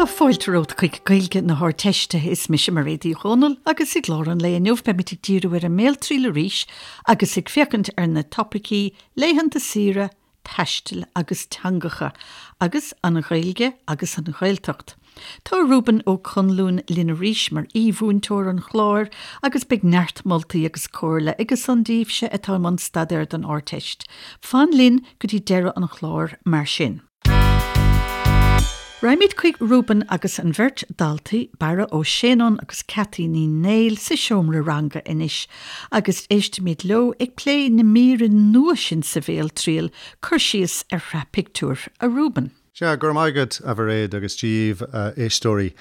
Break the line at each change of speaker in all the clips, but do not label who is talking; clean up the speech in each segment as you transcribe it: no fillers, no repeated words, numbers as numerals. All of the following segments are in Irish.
fáilte romhat chuig Gaeilge na hArdteiste. Is mise Mairéad Uí Dhomhnaill agus i gclár an lae inniu beimid ag díriú ar an mBéaltriail arís agus ag féachaint ar na topaicí laethanta saoire, taistil agus teangacha, agus an Ghaeilge agus an Ghaeltacht. Tá Reuben Ó Conluain linn arís mar aoi-mhúinteoir an chláir agus beidh neart moltaí agus comhairle aigesan daoibhse atá i mbun staidéir don Ardteist. Fan linn go dtí deireadh an chláir mar sin. Raghaimid chuig Reuben agus an bheirt daltaí, Barra Ó Séanáin agus Cathy Ní Néill sa seomra ranga anois agus éistfimid leo ag plé na míre nua sin sa bhéaltriail, cur síos ar shraith pictiúr, a Reuben.
Sea, go raibh maith agat, a Mhairéad, agus Dia dhaoibh, a éisteoirí.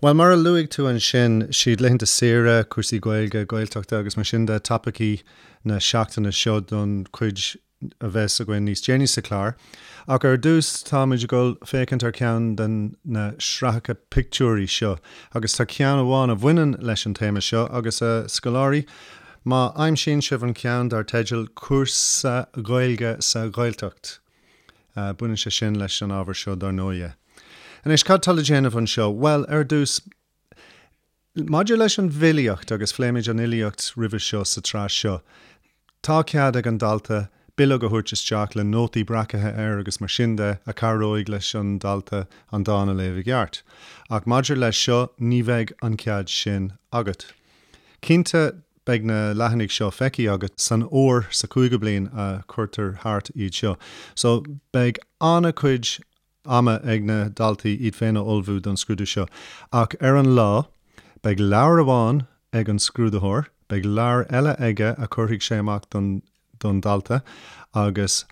Bhuel, mar a luaigh tú ansin, siad laethanta saoire, cúrsaí Gaeilge, Gaeltachta agus mar sin de topaicí na seachtaine seo don chuid a bheas againn níos déanaí sa chlár. Ach ar dtús táimid ag dul féachaint ar cheann den na sraitheacha pictiúirí seo agus tá ceann amháin a bhaineann leis an téama seo agus a scoláirí, má aimsíonn sibh an ceann dar teideal 'Cúrsa Gaeilge sa Ghaeltacht' baineann sé sin leis an ábhar seo dar ndóighe. Anois cad tá le déanamh anseo? Bhuel ar dtús, Maidir leis an bhfilíocht, agus phléimid an fhilíocht roimhe seo sa tsraith seo, tá cead ag an dalta bileog a thabhairt isteach le nótaí breacaithe air agus mar sin de a chabhróidh leis an dalta an dán a léamh i gceart. Ach maidir leis seo, ní bheidh an cead sin agat. Cinnte, beidh na leathanaigh seo feicthe agat san uair sa chúigiú bliain a chuirtear thart iad seo. So, beidh an-chuid ama ag na daltaí iad féin a ullmhú don scrúdú seo. Ach ar an lá, beidh leabhar amháin ag an scrúdaitheoir, beidh leabhar eile aige a chuirfidh sé amach don don dalta agus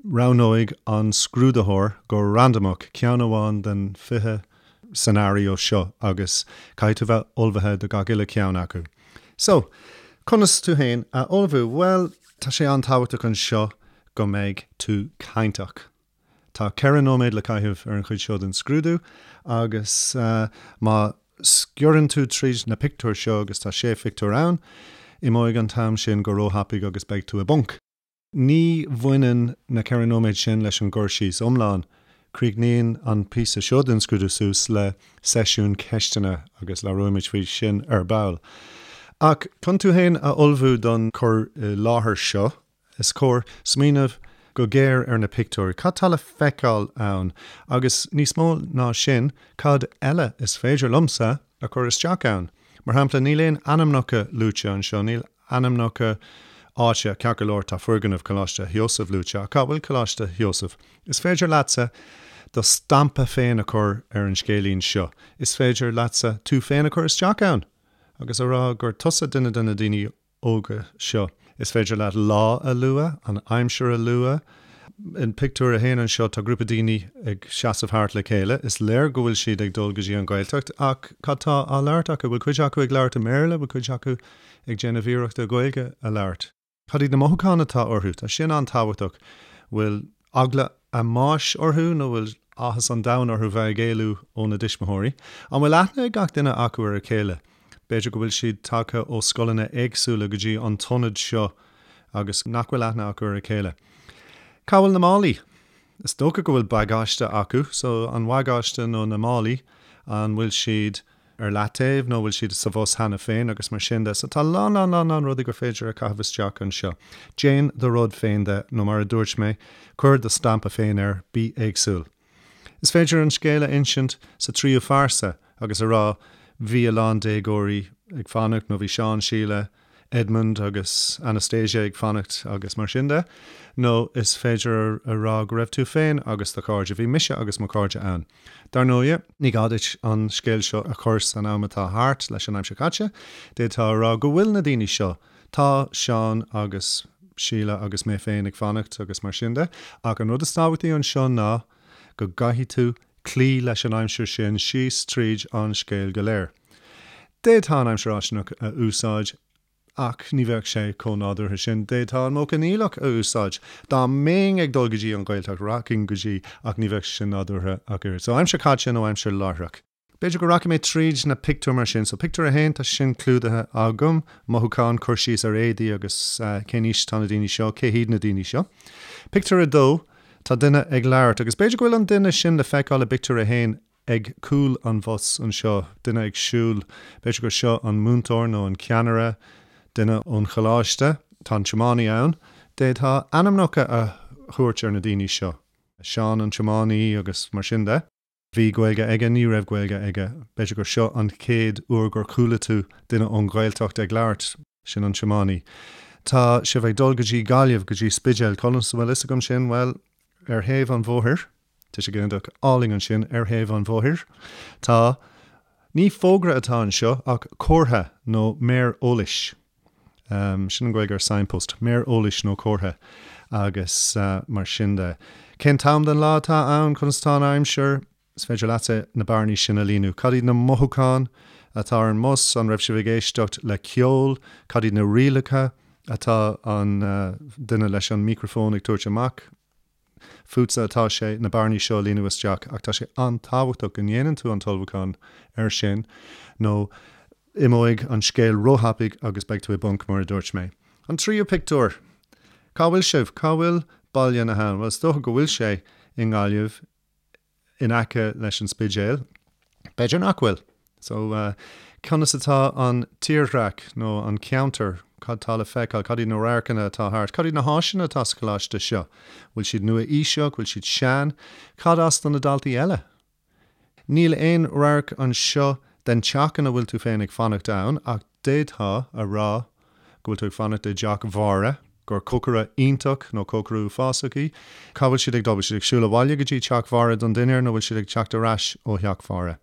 roghnóidh an scrúdaitheoir go randamach ceann amháin den 20 scenario seo agus caithfidh tú bheith ullmhaithe do gach uile cheann acu. So, conas tú féin a ullmhú? Bhuel, tá sé an-tábhachtach anseo go mbeidh tú cainteach. Tá 4 nóiméad le caitheamh ar an chuid seo den scrúdú agus má sciorrann tú tríd na pictiúir seo, agus tá sé phictiúr ann, imeoidh an t-am sin go róthapaidh agus beidh tú i bponc. Ní bhaineann na 4 nóiméad sin leis an gcur síos iomlán. Críochnaíonn an píosa seo den scrúdú suas le seisiún ceisteanna agus labhróimid faoi sin ar ball. Ach chun tú féin a ullmhú don chur i láthair seo, Is cóir smaoineamh go géar ar na pictiúir. Cad tá le feiceáil ann? Agus níos mó ná sin, cad eile is féidir liomsa a chur isteach ann? Mar shampla, níl aon ainmneacha luaite anseo, níl ainmneacha áite, ceart go leor tá foirgneamh Choláiste Sheosaimh luaite, ach cá bhfuil Coláiste Sheosaimh? Is féidir leatsa do stampa féin a chur ar an scéilín seo. Is féidir leatsa tú féin a chur isteach ann agus a rá gur tusa duine de na daoine óga seo. Is féidir leat lá a lua, an aimsir a lua. In pictiúr a haon anseo tá grúpa daoine ag seasamh thart le chéile. Is léir go bhfuil siad ag dul go dtí an Ghaeltacht ach cad tá á labhairt acu? Bhfuil cuid acu ag labhairt i mBéarla? Bhfuil cuid acu ag déanamh iarrachta Gaeilge a labhairt? Cad iad na mothúcháin atá orthu? Tá sin an-tábhachtach. Bhfuil eagla a mbáis orthu nó bhfuil áthas an domhain orthu bheith ag éalú óna dtuismitheoirí? An bhfuil aithne ag gach duine acu ar a chéile? B'fhéidir go bhfuil siad tagtha ó scoileanna éagsúla go dtí an t-ionad seo agus nach bhfuil aithne acu ar a chéile. Cá bhfuil na málaí? Is dócha go bhfuil bagáiste acu, so an bagáiste nó na málaí, an bhfuil siad ar leataobh nó bhfuil siad sa bhus cheana féin agus mar sin de. So tá lán lán lán lán rudaí gur féidir a chaitheamh isteach anseo. Déan do rud féin de nó mar a dúirt mé, cuir do stampa féin air, bí éagsúil. Is féidir an scéal a insint sa tríú phearsa agus a rá bhí a lán déagóirí ag fanacht nó bhí Seán, Síle, Edmund agus Anastasia ag fanacht agus mar sin de. Nó is féidir a rá go raibh tú féin agus do chairde, bhí mise agus mo chairde ann. Dar ndóigh, ní gá duit an scéal seo a chur san am atá thart leis an aimsir chaite, d'fhéadfá a rá go bhfuil na daoine seo, tá Seán agus Síle agus mé féin ag fanacht agus mar sin de, ach an rud is tábhachtaí anseo ná go gcaithfidh tú cloí leis an aimsir sin síos tríd an scéal go léir. D'fhéadfá an aimsir fháistineach a úsáid ach ní bheadh sé chomh nádúrtha sin. D'fhéadfá an modh coinníollach a úsáid. Dá mbeinn ag dul go dtí an Ghaeltacht, rachainn go dtí ach ní bheadh sé sin nádúrtha ach oiread. So aimsir chaite nó aimsir láithreach. B'fhéidir go rachaidh mé tríd na pictiúir mar sin. So pictiúr a haon, tá sin clúdaithe agam. Mothúcháin, cur síos ar éadaí agus cén aois atá na daoine seo, cé hiad na daoine seo. Pictiúr a dó, tá duine ag labhairt agus b'fhéidir go bhfuil an duine sin le feiceáil i bpictiúr a haon. ag cúl an bhus anseo, duine ag siúl, b'fhéidir gur seo an múinteoir nó an ceannaire, duine ón choláiste, tá an tiománaí ann. D'fhéadfá ainmneacha a thabhairt ar na daoine seo, Seán an tiománaí agus mar sin de. Bhí Gaeilge aige, ní raibh Gaeilge aige. B'fhéidir gur seo an chéad uair gur chuala tú duine ón Ghaeltacht ag labhairt. Sin an tiománaí. Tá sibh ag dul go dtí Gaillimh, go dtí Spidéal. Conas a bhfuil fhios agam sin? Bhuel, ar thaobh an bhóthair, tuiseal ginideach álainn ansin, ar thaobh an bhóthair, tá, ní fógra atá anseo ach comhartha nó méar eolais. Sin an Ghaeilge ar signpost, méar eolais nó comhartha agus mar sin de. Cén t-am den lá atá ann? Conas atá an aimsir? Is féidir leatsa na bearnaí sin a líonadh. Cad iad na mothúcháin atá ar an mbus? An raibh sibh ag éisteacht le ceol? Cad iad na rialacha atá an duine leis an micreafón ag tabhairt amach? Fútsa atá sé na bearnaí seo a líonadh isteach ach tá sé an-tábhachtach go ndéanann tú an t-ullmhúchán air sin nó imeoidh an scéal róthapaidh agus beidh tú i bponc mar a dúirt mé. An tríú pictiúr! Cá bhfuil sibh? Cá bhfuil Baile na hAbhann? Bhuel is dócha go bhfuil sé i nGaillimh. in aice leis an Spidéal. B'fhéidir nach bhfuil. So, conas atá an tírdhreach nó an ceantar? Cad tá le feiceáil? Cad iad na radharcanna atá thart? Cad iad na háiseanna atá sa choláiste seo? Bhfuil siad nua-aoiseach? Bhfuil siad sean? Cad as do na daltaí eile? Níl aon radharc anseo den teach ina bhfuil tú féin ag fanacht ann ach d'fhéadfá a rá go bhfuil tú ag fanacht i dteach Mháire, gur cócaire iontach nó cócaire uafásach í. Cá bhfuil siad ag dul? Bhfuil siad ag siúl abhaile go dtí teach Mháire don dinnéar nó bhfuil siad ag teacht ar ais ó theach Mháire?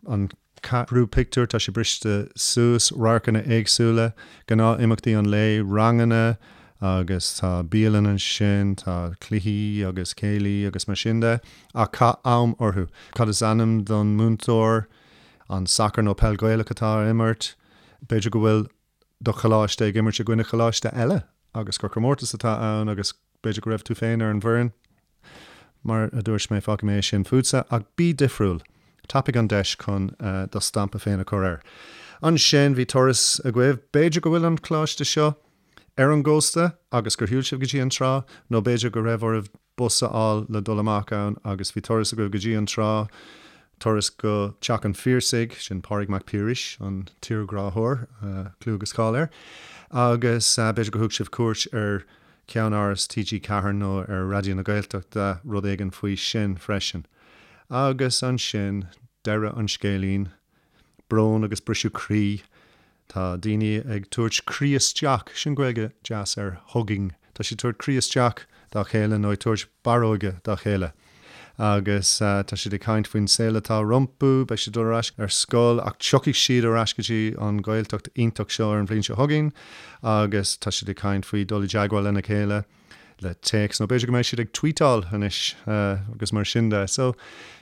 An ceathrú pictiúr, tá sé briste suas, radharcanna éagsúla, gnáth-imeachtaí an lae, ranganna agus tá bialann ansin, tá cluichí agus céilí agus mar sin de. Ach caith am orthu. Cad is ainm don múinteoir? An sacar nó peil Ghaelach atá á imirt? B'fhéidir go bhfuil do choláiste ag imirt i gcoinne choláiste eile agus gur comórtas atá ann agus b'fhéidir go raibh tú féin ar an bhfoireann. Mar a dúirt mé, fágfaidh mé é sin fútsa, ach bí difriúil. Tapaigh an deis chun do stampa féin a chur air. Ansin, bhí turas agaibh. B'fhéidir go bhfuil an coláiste seo ar an gcósta agus gur shiúil sibh go dtí an trá, nó b'fhéidir go raibh oraibh bus a fháil le dul amach ann agus bhí turas agaibh go dtí an trá, turas go Teach an Phiarsaigh, sin Pádraig Mac Piarais, an tírghráthóir, clú agus cáil air, agus b'fhéidir gur thug sibh cuairt ar cheannáras TG4 nó ar Raidió na Gaeltachta, rud éigin faoi sin freisin. Agus ansin, deireadh an scéilín, brón agus briseadh croí. Tá daoine ag tabhairt croí isteach, sin Gaeilge deas ar hugging, tá siad ag tabhairt croí isteach dá chéile nó ag tabhairt barróige dá chéile. Agus tá siad ag caint faoin saol atá rompu, beidh siad ag dul ar ais ar scoil ach tiocfaidh siad ar ais go dtí an Ghaeltacht iontach seo ar an bhliain seo chugainn agus tá siad ag caint faoi dul i dteagmháil lena chéile le téacs nó b'fhéidir go mbeidh siad ag tweetáil anois agus mar sin de. So,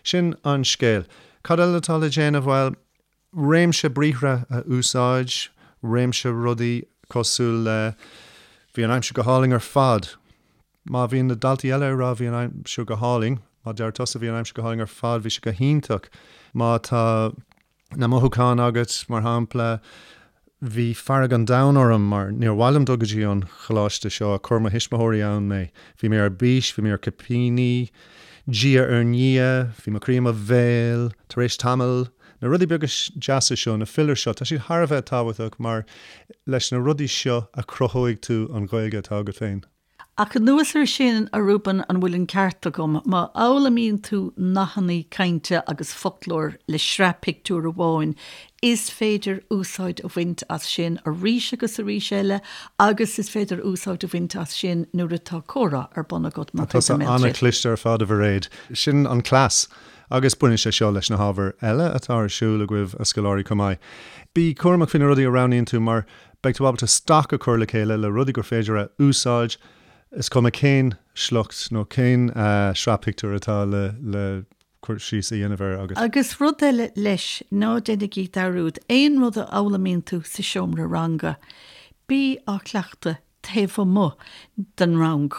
sin an scéal. Cad eile atá le déanamh? Bhuel, réimse briathra a úsáid, réimse rudaí cosúil le Bhí an aimsir go hálainn ar fad. Má bhíonn na daltaí eile ag rá bhí an aimsir go hálainn, má deir tusa bhí an aimsir go hálainn ar fad, bhí sé go hiontach. Má tá na mothúcháin agat, mar shampla, Bhí fearg an domhain orm mar níor mhaith liom dul go dtí an choláiste seo ach chuir mo thuismitheoirí ann mé. Bhí mé ar bís, bhí mé ar cipíní, diaidh ar ndiaidh, bhí mo chroí i mo bhéal, tar éis tamaill. Na rudaí beaga deasa seo, na fillers seo, tá siad thar a bheith tábhachtach mar leis na rudaí seo a chruthóidh tú an Ghaeilge atá agat féin.
Ach anuas air sin, a Reuben, an bhfuil an ceart agam, má fhoghlaimíonn tú nathanna cainte agus foclóir le sraith pictiúr amháin, is féidir úsáid a bhaint as sin arís agus arís eile agus is féidir úsáid a bhaint as sin nuair atá comhrá ar bun agat
mar chuid den mBéaltriail. Tá tusa an-chliste ar fad, a Mhairéad. Sin an cleas. Agus baineann sé seo leis na hábhair eile atá ar siúl agaibh, a scoláirí, chomh maith. Bí cúramach faoi na rudaí a roghnaíonn tú mar Beidh tú ábalta stoc a chur le chéile le rudaí gur féidir a úsáid, is cuma cén sliocht nó cén sraith pictiúr atá le cur síos a dhéanamh air
agat. Agus rud eile leis, ná déanaigí dearúd, aon rud a fhoghlaimíonn tú sa seomra ranga, bí á chleachtadh taobh amuigh den rang.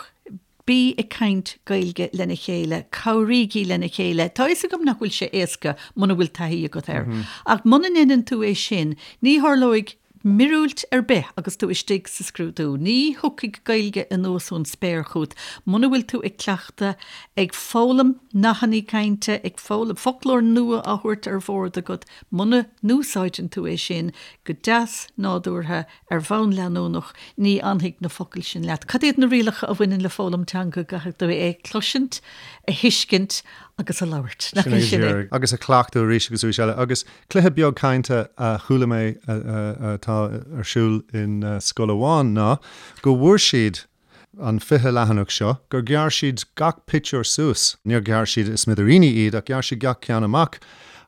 Bí ag caint Gaeilge lena chéile, cabhraígí lena chéile. Tá a fhios agam nach bhfuil sé éasca muna bhfuil taithí agat air. Ach muna ndéanann tú é sin, ní tharlóidh. Míorúilt ar bith agus tú istigh sa scrúdú. Ní thiocfaidh Gaeilge anuas ón spéir chugat muna bhfuil tú ag cleachtadh, ag foghlaim nathannaí cainte, ag foghlaim foclóir nua á thabhairt ar bhord agat. Muna n-úsáideann tú é sin go deas nádúrtha ar bhonn leanúnach, ní fhanfaidh na focail sin leat. Cad iad na rialacha a bhaineann le foghlaim teanga? Caithfidh tú é a chloisint, a thuiscint agus a labhairt.
Nach é sin é? Agus a chleachtadh arís agus arís eile. Agus Cluiche beag cainte a chuala mé atá ar siúl in scoil amháin ná go bhfuair siad an 20 leathanach seo, gur ghearr siad gach pictiúr suas, níor ghearr siad i smidiríní iad ach ghearr siad gach ceann amach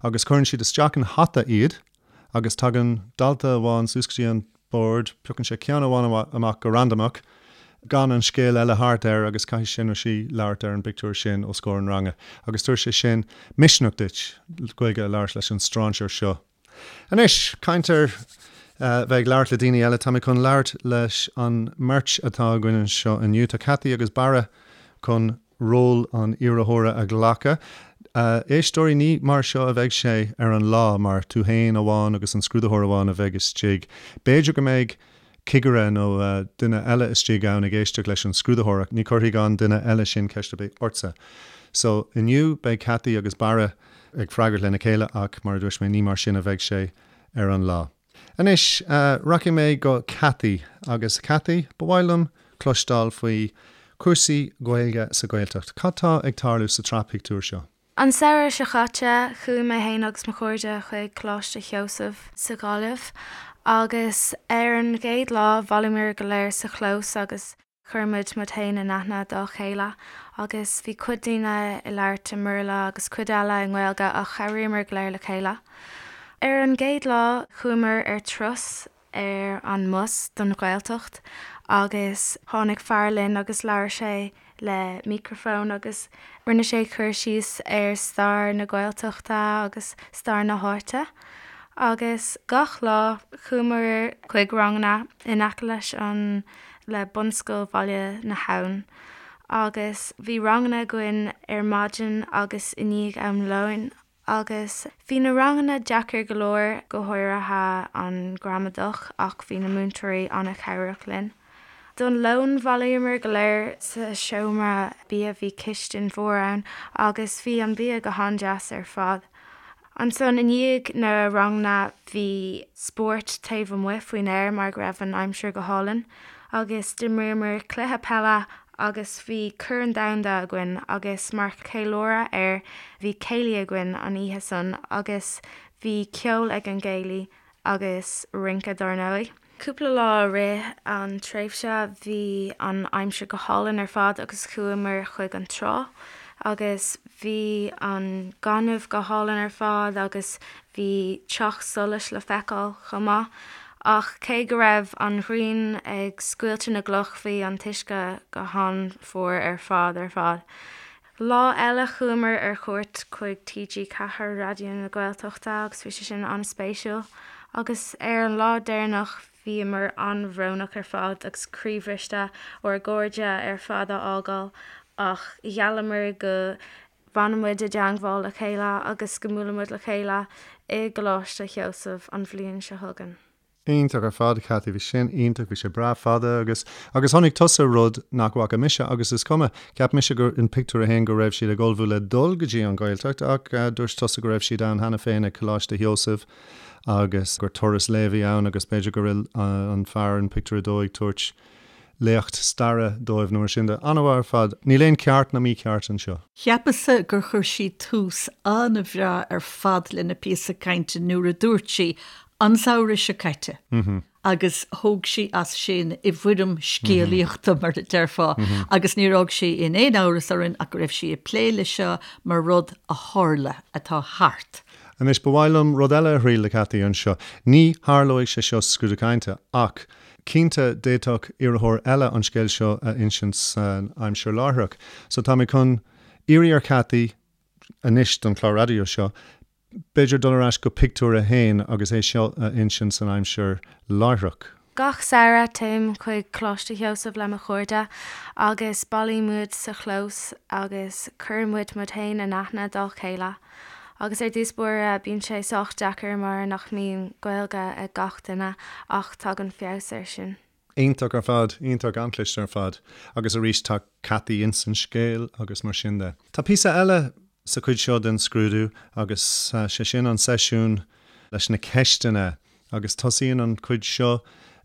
agus cuireann siad isteach in hata iad agus tagann dalta amháin suas go dtí an bord, piocann sé ceann amháin amach go randamach, gan an scéal eile thart air agus caithfidh sé nó sí labhairt ar an bpictiúr sin os comhair an ranga agus tabharfaidh sé sin misneach duit Gaeilge a labhairt leis an stráinséir seo. Anois, caint ar bheith ag labhairt le daoine eile, tá mé chun labhairt leis an mbeirt atá againn anseo inniu. Tá Cathy agus Barra chun ról an iarrthóra a ghlacadh. Éisteoirí, ní mar seo a bheidh sé ar an lá, mar tú féin amháin agus an scrúdaitheoir amháin a bheidh istigh. B'fhéidir go mbeidh cigire nó duine eile istigh ann ag éisteacht leis an scrúdaitheoir ach ní chuirfidh an duine eile sin ceist ar bith ortsa. So, inniu beidh Cathy agus Barra ag freagairt lena chéile ach, mar a dúirt mé, ní mar sin a bheidh sé ar an lá. Anois, rachaidh mé go Cathy agus Cathy, ba mhaith liom cloisteáil faoi chúrsaí Gaeilge sa Ghaeltacht. Cad tá ag tarlú sa tsraith pictiúr seo?
An samhradh seo caite, chuaigh mé féin agus mo chairde chuig Coláiste Sheosaimh sa Ghaillimh agus ar an gcéad lá bhailíomar go léir sa chlós agus Chuir muid muid féin in aithne dá chéile agus bhí cuid daoine ag labhairt i mBéarla agus cuid eile i nGaeilge ach chabhraíomar go léir le chéile. Ar an gcéad lá chuamar ar turas ar an mbus don Ghaeltacht agus tháinig fear linn agus labhair sé le micreafón agus rinne sé cur síos ar stair na Gaeltachta agus stair na háite. Agus gach lá chuamar chuig ranganna in aice leis an le Bunscoil Bhaile na hAbhann agus bhí ranganna againn ar maidin agus i ndiaidh am lóin agus bhí na ranganna deacair go leor, go háirithe an gramadach ach bhí na múinteoirí an-chabhrach linn. Don lón bhailíomar go léir sa seomra bia, bhí cistin mhór ann agus bhí an bia go han-deas ar fad. Ansan i ndiaidh na ranganna bhí spórt taobh amuigh faoin aer mar go raibh an aimsir go hálainn agus d'imríomar cluiche peile agus bhí Corn Domhanda againn agus mar cheiliúradh air bhí céilí againn an oíche san agus bhí ceol ag an gcéilí agus rince dár ndóigh. Cúpla lá i rith an tréimhse bhí an aimsir go hálainn ar fad agus chuamar chuig an trá agus bhí an gaineamh go hálainn ar fad agus bhí teach solais le feiceáil chomh maith. Ach cé go raibh an ghrian ag scoilteadh na gcloch bhí an t-uisce go han-fhuar ar fad ar fad. Lá eile chuamar ar chuairt chuig TG4, Raidió na Gaeltachta agus bhí sé sin an-spéisiúil. Agus ar an lá deireanach bhíomar an-bhrónach ar fad agus croíbhriste ár gcairde ar fad a fhágáil ach gheallamar go bhfanfaidh muid i dteangmháil le chéile agus go mbuailfidh muid le chéile i gColáiste Sheosaimh an bhliain seo chugainn.
Iontach ar fad, Cathy. Bhí sin iontach. Bhí sé breá fada agus, agus chonaic tusa rud nach bhfaca mise agus is cuma, cheap mise gur in pictiúr a haon go raibh siad ag ullmhú le dul go dtí an Ghaeltacht ach dúirt tusa go raibh siad ann cheana féin ag Coláiste Sheosaimh agus gur turas lae a bhí ann agus b'fhéidir go raibh an fear in pictiúr a dó ag tabhairt léacht staire dóibh nó mar sin de. An-mhaith ar fad. Níl aon ceart ná mícheart anseo.
Cheapas-sa gur chuir sí tús an-bhreá ar fad lena píosa cainte nuair a dúirt sí An samhradh seo caite, agus thóg sí as sin i bhfoirm scéalaíochta, mar a déarfá, agus níor fhág sí in aon amhras orainn ach go raibh sí ag plé leis seo mar rud a tharla, atá thart.
Anois, ba mhaith liom rud eile a thriail le Cathy anseo. Ní tharlóidh sé seo sa scrúdú cainte, ach cinnte d'fhéadfadh iarrthóir eile an scéal seo a insint san aimsir láithreach. So tá mé chun iarraidh ar Cathy anois don chlár raidió seo, B'fhéidir dul ar ais go pictiúr a haon agus é seo a insint san aimsir láithreach.
Gach samhradh téim chuig Coláiste Sheosaimh le mo chairde agus bailímid sa chlós agus cuireann muid muid féin in aithne dá chéile. Agus ar dtús báire bíonn sé sách deacair mar nach mbíonn Gaeilge ag gach duine ach tagann feabhas air sin.
Iontach ar fad, iontach, an-chliste ar fad. Agus arís tá Cathy ins an scéal agus mar sin de. Tá píosa eile sa chuid seo den scrúdú agus sé sin an seisiún leis na ceisteanna agus tosaíonn an chuid seo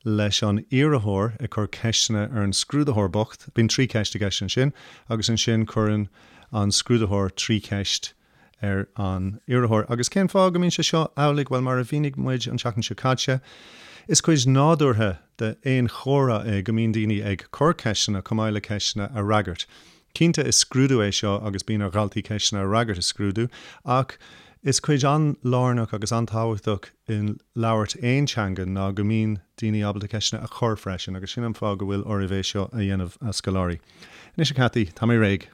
leis an iarrthóir ag cur ceisteanna ar an scrúdaitheoir bocht. Bíonn 3 cheist i gceist ansin agus ansin cuireann an scrúdaitheoir 3 cheist ar an iarrthóir. Agus cén fáth go mbíonn sé seo amhlaidh? Bhuel, mar a mhínigh muid an tseachtain seo caite, is cuid nádúrtha d'aon chomhrá é go mbíonn daoine ag cur ceisteanna chomh maith le ceisteanna a fhreagairt. Cinnte, is scrúdú é seo agus bíonn ar dhaltaí ceisteanna a fhreagairt i scrúdú, ach is cuid an-lárnach agus an-tábhachtach i labhairt aon teanga ná go mbíonn daoine ábalta ceisteanna a chur freisin, agus sin an fáth go bhfuil oraibh é seo a dhéanamh, a scoláirí. Anois, a Cathy, tá mé réidh.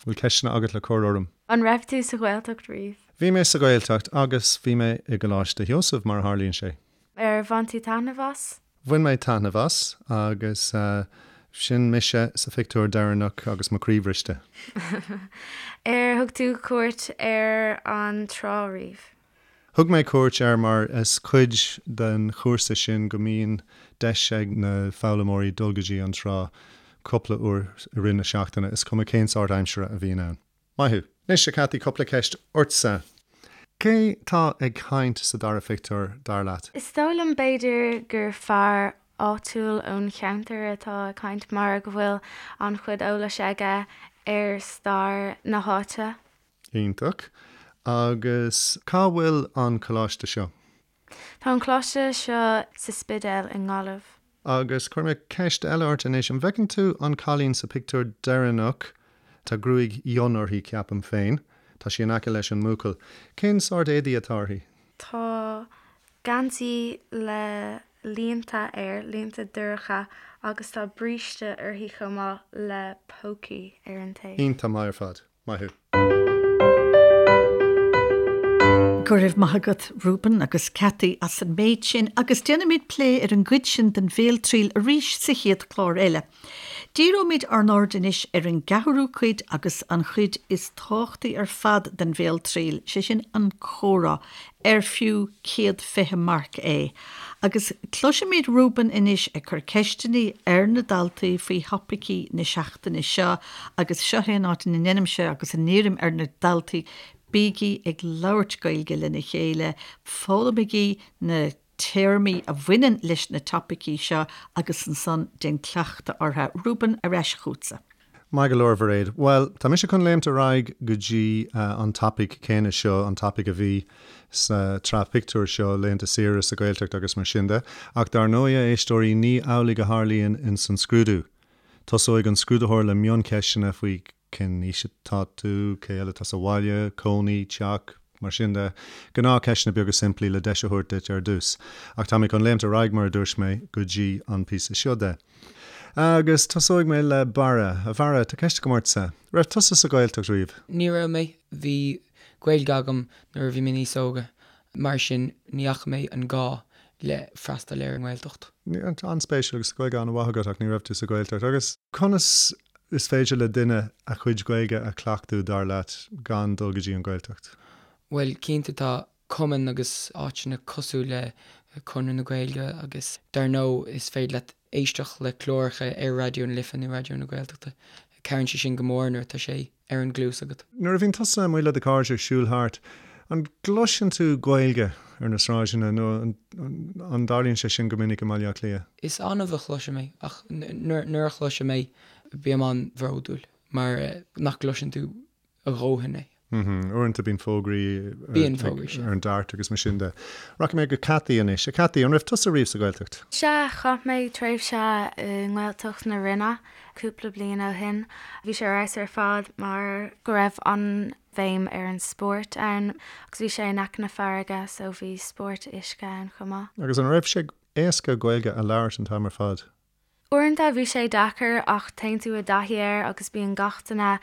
Bhfuil ceisteanna agat le cur orm?
An raibh tú sa Ghaeltacht riamh?
Bhí mé sa Ghaeltacht agus bhí mé i gColáiste Sheosaimh, mar a tharlaíonn sé.
Ar bhain tú taitneamh as?
Bhain mé taitneamh as agus sin mise sa phictiúr deireanach agus mo chroí bhriste.
Ar thug tú cuairt ar an trá riamh?
Thug mé cuairt air mar is cuid den chúrsa sin go mbíonn deis ag na foghlaimeoirí dul go dtí an trá cúpla uair i rith na seachtaine, is cuma cén sórt aimsire a bhíonn ann. Maith thú. Anois, a Cathy, cúpla ceist ortsa. Cé tá ag caint sa dara phictiúr, dar leat?
Is dóigh liom b'fhéidir gur fear áitiúil ón cheantar atá ag caint mar go bhfuil an-chuid eolais aige ar stair na háite.
Iontach. Agus cá bhfuil an coláiste seo?
Tá an coláiste seo sa Spidéal i nGaillimh.
Agus cuirfidh mé ceist eile ort anois. An bhfeiceann tú an cailín sa phictiúr deireanach? Tá gruaig fhionn uirthi, ceapaim féin. Tá sí in aice leis an mbuachaill. Cén sórt éadaí atá uirthi?
Tá geansaí le línte air, línte dorcha, agus tá bríste uirthi chomh maith le pócaí ar an taobh.
Iontach maith ar fad. Maith thú.
Go raibh maith agat Reuben agus Cathy as an méid sin agus déanfaimid plé ar an gcuid sin den bhéaltriail arís sa chéad chlár eile. Díreoimid ár n-aird anois ar an gceathrú cuid agus an chuid is tábhachtaí ar fad den bhéaltriail, sé sin an comhrá, ar fiú 120 marc é. Agus cloisfimid Reuben anois ag cur ceisteanna ar na daltaí faoi thopaicí na seachtaine seo agus seo é an áit ina ndeinimse agus a n-iarraim ar na daltaí, bígí ag labhairt Gaeilge lena chéile, foghlaimigí na téarmaí a bhaineann leis na topaicí seo agus ansan déan cleachtadh orthu. Reuben, ar ais chughatsa.
Maith go leor, Mhairéad. Bhuel, tá mise chun léimt ar aghaidh go dtí an topaic céanna seo, an topaic a bhí sa tsraith pictiúr seo, laethanta saoire sa Ghaeltacht agus mar sin de. Ach dar ndóigh, a éisteoirí, ní amhlaidh a tharlaíonn ins an scrúdú. Tosóidh an scrúdaitheoir le mioncheisteanna faoi cén aois atá tú, cé eile atá sa bhaile, cónaí, teach, mar sin de. Gnáthcheisteanna beaga simplí le deis a thabhairt duit ar dtús. Ach tá mé chun léimt ar aghaidh, mar a dúirt mé, go dtí an píosa seo de. Agus tosóidh mé le Barra. A Bharra, tá ceist agam ortsa. Raibh tusa sa Ghaeltacht riamh?
Ní raibh mé. Bhí Gaeilge agam nuair a bhí mé níos óga, mar sin ní fhaca mé an gá le freastal ar an nGaeltacht.
An-spéisiúil, agus Gaeilge an-mhaith agat ach ní raibh tú sa Ghaeltacht. Agus conas is féidir le duine a chuid Gaeilge a chleachtadh, dar leat, gan dul go dtí an Ghaeltacht?
Bhuel, cinnte tá cumainn agus áiteanna cosúil le Conradh na Gaeilge agus dar ndóigh is féidir leat éisteacht le cláracha ar Raidió na Life nó Raidió na Gaeltachta. Cabhraíonn sé sin go mór nuair atá sé ar an gcluas agat.
Nuair a bhíonn tusa amuigh le do chairde ag siúl thart, an gcloiseann tú Gaeilge ar na sráideanna nó an dtarlaíonn sé sin go minic i mBaile Átha Cliath?
Is annamh a chloisim é ach nuair a chloisim é bím an-bhródúil mar nach gcloiseann tú a dhóthain é.
Uaireanta bíonn fógraí Bíonn fógraí, sea. ar an DART agus mar sin de. Rachaidh mé go Cathy anois. A Cathy, an raibh tusa riamh sa Ghaeltacht?
Sea, chaith mé tréimhse i nGaeltacht na Rinne cúpla bliain ó shin. Bhí sé ar fheabhas ar fad mar go raibh an-bhéim ar an spórt ann agus bhí sé in aice na farraige so bhí spórt uisce ann chomh maith.
Agus an raibh sé éasca Gaeilge a labhairt an t-am ar fad?
Uaireanta bhí sé deacair ach téann tú i dtaithí air agus bíonn gach duine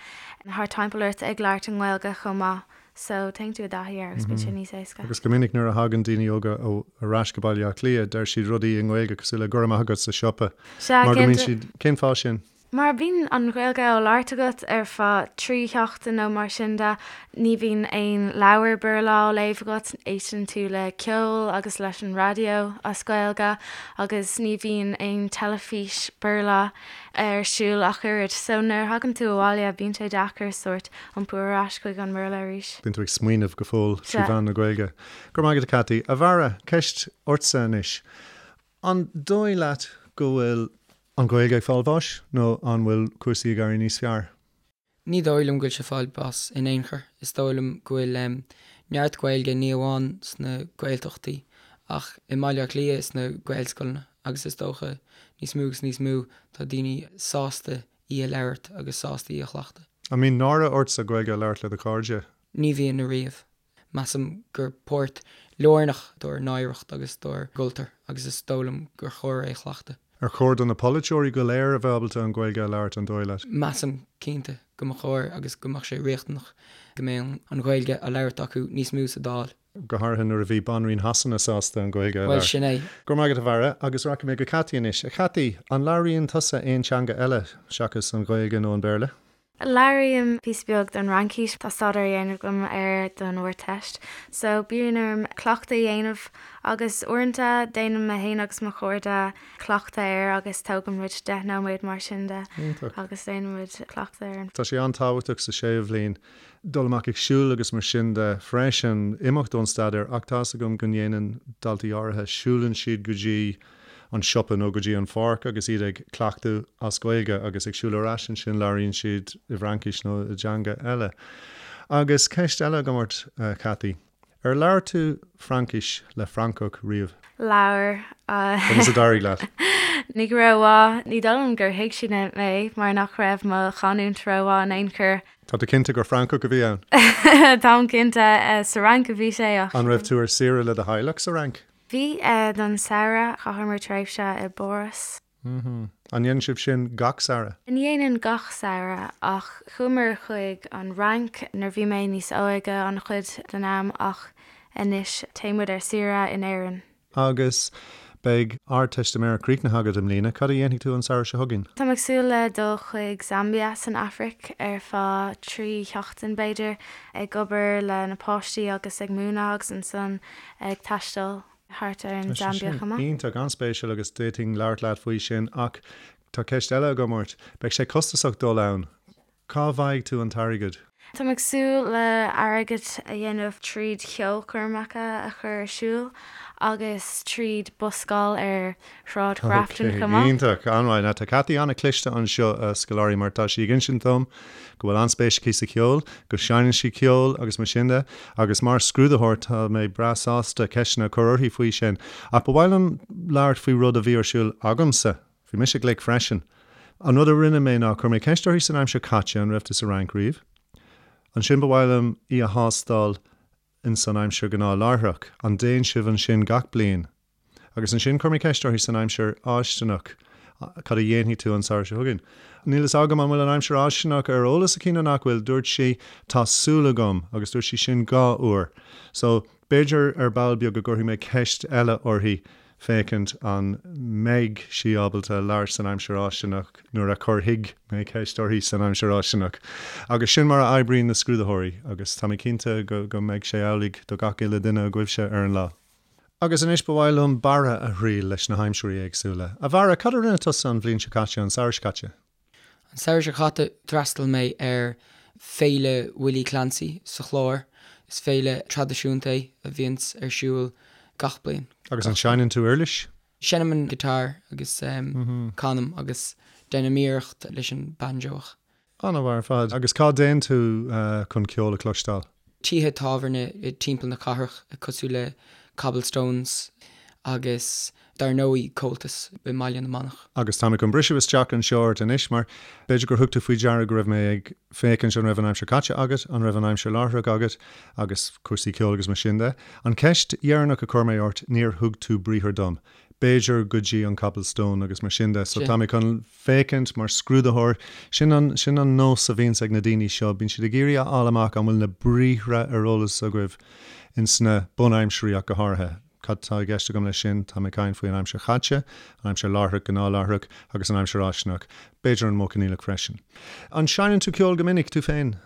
thart timpeall ort ag labhairt i nGaeilge chomh maith so téann tú i dtaithí air agus bíonn sé níos éasca.
Agus go minic nuair a thagann daoine óga ar ais go Baile Átha Cliath deir siad rudaí i nGaeilge cosúil le go raibh maith agat sa siopa
Sea,
mar go mbíonn siad, cén fáth sin?
Mar bíonn an Ghaeilge á labhairt agat ar feadh 3 sheachtain nó mar sin de, ní bhíonn aon leabhar Béarla á léamh agat, éisteann tú le ceol agus leis an raidió as Gaeilge agus ní bhíonn aon teilifís Béarla ar siúl ach oiread. So nuair a thagann tú abhaile bíonn sé deacair sórt iompú ar ais chuig an mBéarla arís.
Bíonn tú ag smaoineamh go fóill trí mheán na Gaeilge. Go raibh maith agat a Cathy. A Bharra, ceist ortsa anois. An dóigh leat go bhfuil an Ghaeilge ag fáil bháis nó an bhfuil cúrsaí ag éirí níos fearr?
Ní dóigh liom go bhfuil sé ag fáil bás in aon chor. Is dóigh liom go bhfuil neart Gaeilge ní amháin sna Gaeltachtaí ach i mBaile Átha Cliath sna Gaelscoileanna agus is dócha níos mó agus níos mó tá daoine sásta í a labhairt agus sásta í a chleachtadh.
An mbíonn náire ortsa Gaeilge a labhairt le do chairde?
Ní bhíonn ariamh. Measaim gur páirt lárnach dár n-oidhreacht agus dár gcultúr agus is dóigh liom gur chóir é a chleachtadh.
Ar chóir do na polaiteoirí go léir a bheith ábalta an Ghaeilge a labhairt, an dóigh leat?
Measaim, cinnte, go mba chóir agus go mbeadh sé riachtanach go mbeadh an Ghaeilge á labhairt acu níos mó sa Dáil.
Go háirithe nuair a bhí Banríon Shasana sásta an Ghaeilge a
labhairt. Bhuel, sin é.
Go raibh maith agat, a Bharra, agus rachaidh mé go Cathy anois. A Chathy, an labhraíonn tusa aon teanga eile seachas an Ghaeilge nó an Béarla?
Labhraím píosa beag den Fhraincis, tá staidéar á dhéanamh agam air don Ardteist, so bíonn orm cleachtadh a dhéanamh agus uaireanta déanaim mé féin agus mo chairde cleachtadh air agus tógann muid 10 nóiméad mar sin de agus déanann muid cleachtadh air.
Tá sé an-tábhachtach sa séú bhliain dul amach ag siúl agus mar sin de freisin, imeacht ón staidéar ach tá's agam go ndéanann daltaí áirithe, siúlann siad go dtí an siopa nó go dtí an pháirc agus iad ag cleachtadh as Gaeilge agus ag siúl ar ais ansin labhraíonn siad i bhFraincis nó i dteanga eile. Agus ceist eile agam ort, a Chathy. Ar labhair tú Fraincis le Francach riamh?
Labhair.
Conas a d'éirigh leat?
Ní go rómhaith. Ní dóigh liom gur thuig siad mé mar nach raibh mo chanúint rómhaith in aon chor.
Tá tú cinnte gur Francach a bhí ann?
Táim cinnte. Sa Fhrainc a bhí sé
ach. An raibh tú ar saoire le do theaghlach sa Fhrainc?
Bhí, don samhradh. Chaitheamar tréimhse i bPáras.
An ndéanann sibh sin gach samhradh?
Ní dhéanann gach samhradh, ach chuamar chuig an Fhrainc nuair bhí mé níos óige an-chuid den am ach anois téann muid ar saoire in Éirinn.
Agus beidh Ardteistiméireacht críochnaithe agat i mbliana, cad a dhéanfaidh tú an samhradh seo chugainn?
Táim ag súil le dul chuig Zambia san Afraic ar feadh 3 sheachtain b'fhéidir, ag obair le na páistí agus ag múineadh agus ansan ag taisteal thart ar an
Tá sé
Zambia
sin
chomh maith.
iontach, an-spéisiúil agus d'fhéadfainn labhairt leat faoi sin ach tá ceist eile agam ort. Beidh sé costasach dul ann. Cá bhfaighidh tú an t-airgead?
Táim ag súil le airgead a dhéanamh tríd cheolchoirmeacha a chur ar siúl agus tríd buscáil ar Shráid Ghrafton
Ok,
chomh maith.
iontach, an-mhaith. Now tá Cathy an-chliste anseo, a scoláirí, mar tá sí ag insint dom go bhfuil an-spéis aici sa cheol, go seinneann sí ceol agus mar sin de, agus mar scrúdaitheoir tá mé breá sásta ceisteanna a chur uirthi faoi sin. Ach ba mhaith liom labhairt faoi rud a bhí ar siúl agamsa. Bhí mise glic freisin. An rud a rinne mé ná chuir mé ceist uirthi san aimsir caite, an raibh tú sa Fhrainc riamh? Ansin ba mhaith liom í a thástáil in san aimsir ghnáthláithreach, an dtéann sibh ansin gach bliain? Agus ansin chuir mé ceist uirthi san aimsir fháistineach, cad a dhéanfaidh tú an samhradh seo chugainn? Níl fhios agam an bhfuil an aimsir fháistineach ar eolas aici nó nach bhfuil, dúirt sí tá súil agam agus dúirt sí sin 2 uair. So, b'fhéidir ar ball beag go gcuirfidh mé ceist eile uirthi féachaint an mbeidh sí ábalta labhairt san aimsir fháistineach nuair a chuirfidh mé ceist uirthi san aimsir fháistineach. Agus sin mar a oibríonn na scrúdaitheoirí agus tá mé cinnte go go mbeidh sé amhlaidh do gach uile duine agaibhse ar an lá. Agus anois ba mhaith liom Barra a thriail leis na haimsirí éagsúla. A Bharra, cad a rinne tusa an bhliain seo caite, an samhradh seo caite?
An samhradh seo caite d'fhreastail mé ar Féile Willie Clancy sa Chlár. Is féile traidisiúnta é a bhíonns ar siúl gach bliain.
Agus an seinneann tú uirlis?
Seinnim an guitar agus canaim agus déanaim iarracht leis an banjo ach.
An-mhaith ar fad. Agus cá dtéann tú chun ceol a chloisteáil?
Tithe tábhairne timpeall na cathrach cosúil le Cobblestones agus dar ndóigh Comhaltas i mBaile na Manach.
Agus tá mé chun briseadh isteach anseo ort anois mar b'fhéidir gur thug tú faoi deara go raibh mé ag féachaint an raibh an aimsir caite agat, an raibh an aimsir láithreach agat agus cúrsaí ceoil agus mar sin de. An cheist dheireanach a chuir mé ort, níor thug tú briathar dom. B'fhéidir go dtí an Cobblestone agus mar sin de. So tá mé chun. féachaint mar scrúdaitheoir. Sin an, sin an nós a bhíonns ag na daoine seo, bíonn siad ag iarraidh a fháil amach an bhfuil na briathra ar eolas agaibh ins na bunaimsirí ach go háirithe. Cad tá i gceist agam leis sin? Tá mé ag caint faoi an aimsir chaite, an aimsir láithreach, gnáthláithreach, agus an aimsir fháistineach. B'fhéidir an modh coinníollach freisin. An seinneann tú ceol go minic, tú féin?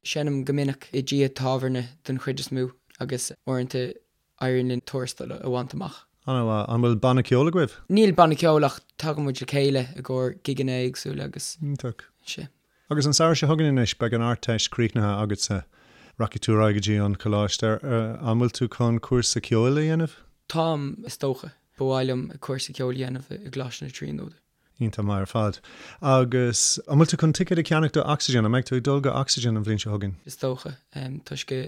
Seinnim go minic i dtithe tábhairne den chuid is mó agus uaireanta éiríonn linn tuarastal a bhaint amach.
An-mhaith. An bhfuil banna ceoil agaibh?
Níl banna ceoil ach tagann muid le chéile i gcomhair gigeanna éagsúla agus.
Iontach.
Sea.
Agus an samhradh seo chugainn anois, beidh an Ardteist críochnaithe agatsa. Rachaidh tú ar aghaidh go dtí an coláiste. An bhfuil tú chun cúrsa ceoil a dhéanamh?
Táim, is dócha. Ba mhaith liom cúrsa ceoil a dhéanamh i gColáiste na Tríonóide.
Iontach maith ar fad. Agus an bhfuil tú chun ticéad a cheannach do Oxygen? An mbeidh tú ag dul go Oxygen an bhliain seo chugainn?
Is dócha, toisc go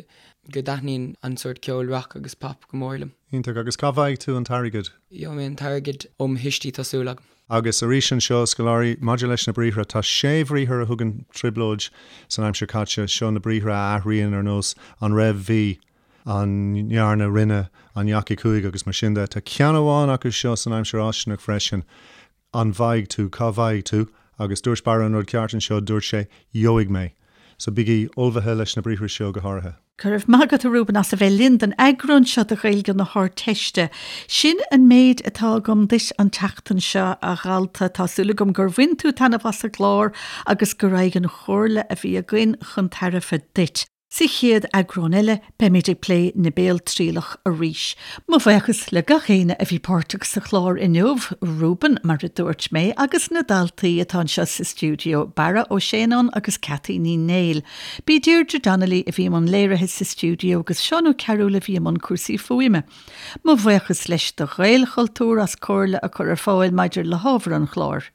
go dtaitníonn an sórt ceoil rock agus pop go mór liom.
Iontach. Agus cá bhfaighidh tú an t-airgead?
Gheobhaidh mé an t-airgead ó mo thuistí, tá súil agam.
Agus arís anseo, scoláirí, maidir leis na briathra, tá sé bhriathar a thugann trioblóid san aimsir chaite. Seo na briathra a athraíonn ar nós an raibh, bhí, an ndearna, rinne, an ndeachaigh, chuaigh agus mar sin de. Tá ceann amháin acu seo san aimsir fháistineach freisin, an bhfaighidh tú, cá bhfaighidh tú? Agus dúirt Barra an rud ceart anseo, dúirt sé, gheobhaidh mé. So bígí ullmhaithe leis na briathra seo go háirithe.
Go raibh maith agat, a Reuben, as a bheith linn don eagrán seo de Ghaeilge na hArdteiste. Sin an méid atá agam duit an tseachtain seo, a dhalta. Tá súil agam gur bhain tú taitneamh as an gclár agus go raghadh an chomhairle a bhí againn chun tairbhe duit. Sa chéad eagrán eile, beimid ag plé na béaltrialach arís. Mo bhuíochas le gach éinne a bhí páirteach sa chlár inniu, Reuben, mar a dúirt mé, agus na daltaí atá anseo sa stiúideo, Barra Ó Séanáin agus Cathy Ní Néill. B'í Deirdre Donnelly a bhí i mbun léirithe sa stiúideo agus Seán Ó Cearúil a bhí i mbun cúrsaí fuaime. Mo bhuíochas leis do Ghaelchultúr as comhairle a chur ar fáil maidir le hábhar an chláir.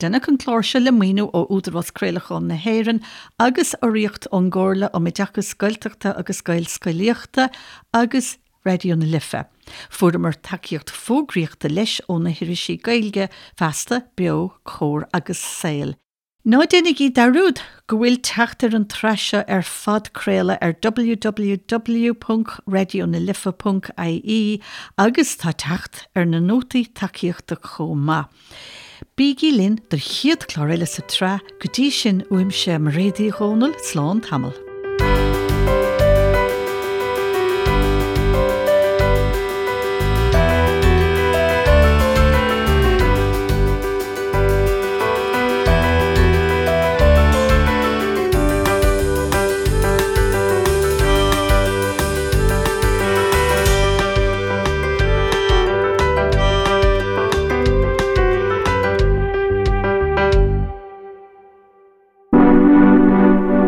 Deineadh an clár seo le maoiniú ó Údarás Craolacháin na hÉireann agus urraíocht ón gComhairle um Oideachas Gaeltachta agus Gaelscolaíochta agus Raidió na Life. Fuaireamar tacaíocht fógraíochta leis ó na hirisí Gaeilge, Feasta, Beo, Comhar agus Saol. Ná déanaigí dearúd go bhfuil teacht ar an tsraith seo ar phodchraoladh ar www.raidionalife.ie agus tá teacht ar na nótaí tacaíochta chomh maith. Bígí linn don chéad chlár eile sa tsraith, go dtí sin uaimse Mairéad Uí Dhomhnaill, slán tamall.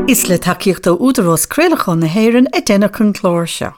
Is le tacaíocht ó Údarás Craolacháin na hÉireann a deineadh an clár seo.